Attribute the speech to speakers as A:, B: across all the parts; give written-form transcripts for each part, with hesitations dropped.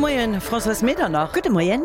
A: Moien, Françoise Medernach.
B: Gudde Moien.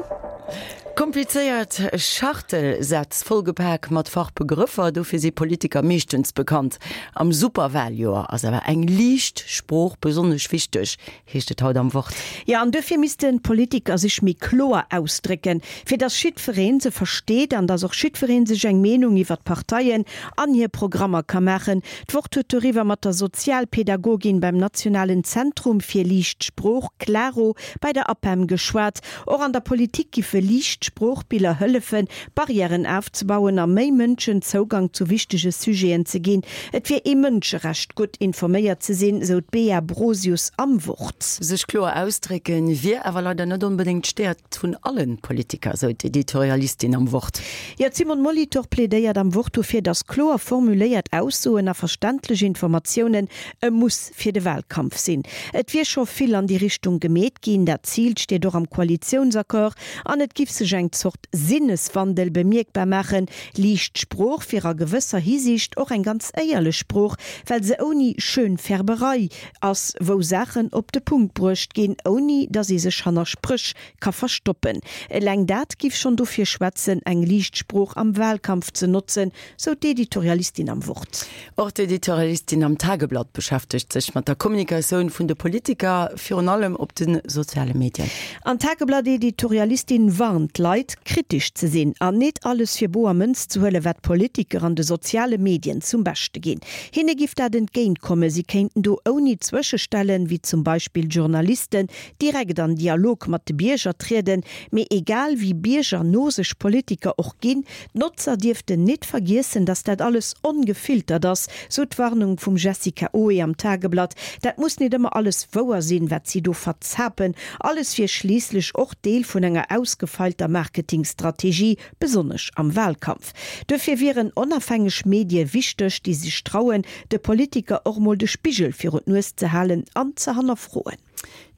A: Komplizéiert Schachtelsätz, vollgepak mat Fachbegrëffer, dofir si Politiker meeschtens bekannt. Am Superwaljoer ass awer eng liicht Sprooch besonnesch wichteg, heescht et haut am Wort.
B: Jo, an duerfir missten d'Politiker sech méi kloer ausdrécken, fir dass jiddweree se versteet an dass och jiddweree sech eng Meenung iwwer d'Parteien an hir Programmer ka maachen. D'Wort huet doriwwer mat der Sozialpädagogin beim Nationalen Zentrum fir liicht Sprooch, Claro, bei der APEM geschwat. Och an der Politik giffe liicht Sproochbiller hëllefen, Barrièren afzebauen a méi Mënschen Zougang zu wichtege Sujeten ze ginn. Et wier ee Mënscherecht, gutt informéiert ze sinn, sou d'Bea Brosius am Wort.
A: Sech kloer ausdrécken, wier awer leider net onbedéngt d'Stäerkt vun alle Politiker, sou d'Editorialistin am Wort.
B: Jo, d'Simone Molitor plädéiert am Wort dofir, datt kloer formuléiert Aussoen a verständlech Informatiounen e Muss fir de Wahlkampf sinn. Et wier scho vill an déi Richtung gemeet ginn, dat Zil steet och am Koalitiounsaccord an et giff sech eng Zort Sinneswandel bemierkbar maachen. Liicht Sprooch wier a gewësser Hisiicht och eng ganz éierlech Sprooch, well se ouni Schönfärberei ass, wou Saachen op de Punkt bruecht ginn, ouni datt ee sech hanner Spréch ka verstoppen. Eleng dat giff schonn dofir schwätzen, eng liicht Sprooch am Wahlkampf ze notzen, sou d'Editorialistin am Wort.
A: Och d'Editorialistin am Tageblatt beschäftegt sech mat der Kommunikatioun vun de Politiker, virun allem op de soziale Medien.
B: An d'Tageblatt-Editorialistin warnt d'Leit, kritesch ze sinn an nit alles fir boer Mënz ze huelen, wat d'Politiker an de soziale Medien zum Beschte ginn. Hinne giff dat entgéint kommen, si kéinten do ouni Zwëschestellen, wéi zum Beispill Journalisten, direkt an Dialog mat de Bierger trieden. Mee egal wéi biergerno sech Politiker och ginn, D'Notzer dierften nit vergiessen, dass dat alles ongefiltert ass, sou d'Warnung vum Jessica Oe am Tageblatt. Dat muss nit ëmmer alles wouer sinn, wat si do verzapen. Alles wier schliisslech och Deel vun enger ausgefeilter Marketingstrategie, besonnesch am Wahlkampf. Duerfir wieren onafhängeg Medie wichteg, déi sech trauen, de Politiker och mol de Spigel virun d'Nues ze halen an ze hannerfroen.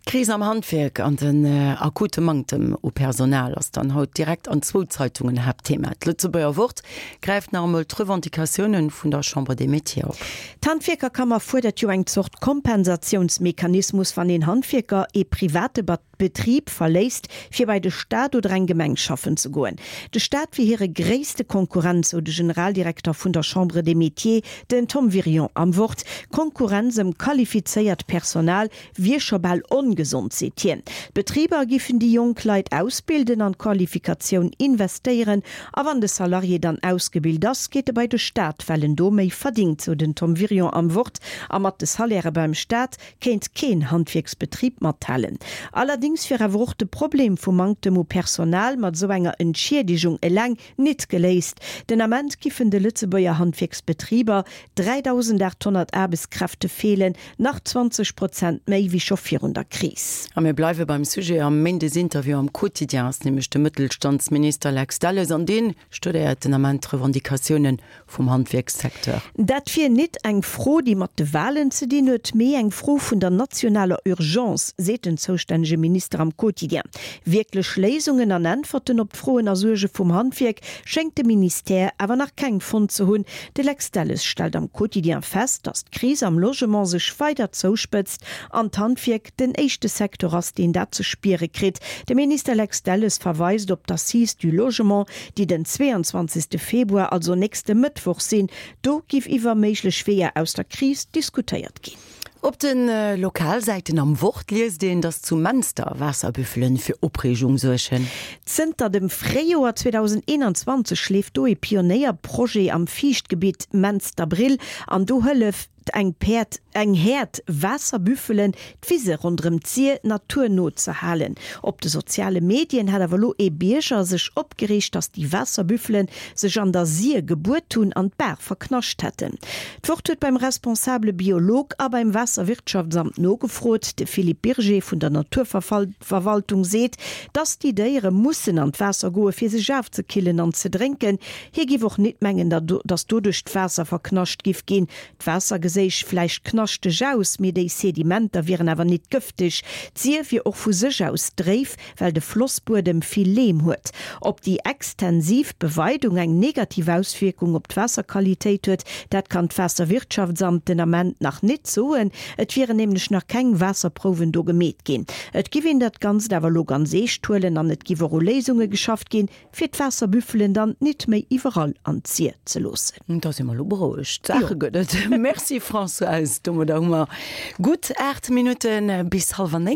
A: D'Kris am Handwierk an den akute Manktem u Personal ass dann haut direkt an zwou Zeitungen Haaptthema. D'Lëtzebuerger Wort gräift nach emol d'Revendicatioune vun der Chambre des Métiers op.
B: D'Handwierkerkammer fuerdert jo eng Zort Kompensatiounsmechanismus, wann een Handwierker ee private Betrib verléisst, fir bei de Staat oder eng Gemeng schaffen ze goen. De Staat wier hire gréisste Konkurrent, sou de Generaldirekter vun der Chambre des Métiers, den Tom Wirion am Wort. D'Konkurrenz ëm qualifizéiert Personal Wier scho bal ongesond, seet hien. D'Betriber giffen déi jonk Leit ausbilden, an d'Qualifikatioun investéieren. A wann de Salarié dann ausgebilt ass, geet e bei de Staat, well en do méi verdingt, sou den Tom Wirion am Wort. A mat de Salairë beim Staat kéint keen Handwierksbetrib mathalen. Allerdéngs wier awer och de Problem vum Manktem u Personal mat esou enger Entschiedegung eleng nit geléist. Den Ament giffen de Lëtzebuerger Handwierksbetriber 3.800 Aarbechtskräfte feelen, nach 20 Prozent méi wéi scho virun der Kris.
A: A mir bleiwe beim Sujet. Am Méindesinterview am Quotidien ass nämlech de Mëttelstandsminister Lex Delles an dee studéiert den Ament d'Revendicatioune vum Handwierkssecteur.
B: Dat wier nit eng Fro, déi mat de Walen ze dinn huet, mee eng Fro vun der nationaler Urgence, seet den zoustännege Minister am Quotidien. Wierklech Léisungen an Äntwerten op d'Froen a Suerge vum Handwierk schéngt de Ministère awer nach keng fonnt ze hunn. De Lex Delles stellt am Quotidien fest, datt d'Kris am Logement sech weider zouspëtzt an d'Handwierk den éischte Secteur ass, deen dat ze spiere kritt. De Minister Lex Delles verweist op d'Assises du Logement, déi den 22. Februar, also nächste Mëttwoch sinn. Do giff iwwer méiglech Weeër aus der Kris diskutéiert ginn.
A: Op de Lokalsäiten am Wort liest een, datt zu Menster Waasserbüffelen fir Opreegung suergen.
B: Zënter dem Fréijoer 2021 leeft do ee Pionéierprojet am Fiichtgebitt Mensterbrill an do hëlleft eng Päerd, eng Häerd Waasserbüffelen, d'Wise ronderëm d'Sir naturno ze halen. Op de soziale Medien hat awer elo ee Bierger sech opgereegt, datt déi Waasserbüffelen sech an der Sir gebuert hunn an d'Baach verknascht hätten. D'Wort huet beim responsabele Biolog a beim Waasserwirtschaftsamt nogefrot. De Philippe Birger vun der Naturverwaltung seet, datt déi Déiere mussen an d'Waasser goe fir sech afzekillen an ze drénken. Hie giff och nit mengen, datt doduerch d'Waasser verknascht giff ginn. D'Waasser geséit. geséich vläicht knaschteg aus, mee déi Sedimenter wieren awer nit gëfteg. D'Sir wier och vu sech aus dréif, well de Flossbuedem vill Leem huet. Ob déi extensiv Beweidung eng negativ Auswierkung op d'Waasserqualitéit huet, dat kann d'Waasserwirtschaftsamt den Ament nach nit soen. Et wieren nämlech nach keng Waasserprouwen do gemeet ginn. Et giff een dat Ganzt awer elo ganz eescht huelen an et giff och u Léisunge geschafft ginn, fir d'Waasserbüffelen dann nit méi iwwerall an d'Sir ze loossen.
A: Da si mer elo berouegt. Saache gëtt et. Merci Françoise. Domadder hu mer gutt 8 Minutte bis hallwer 9.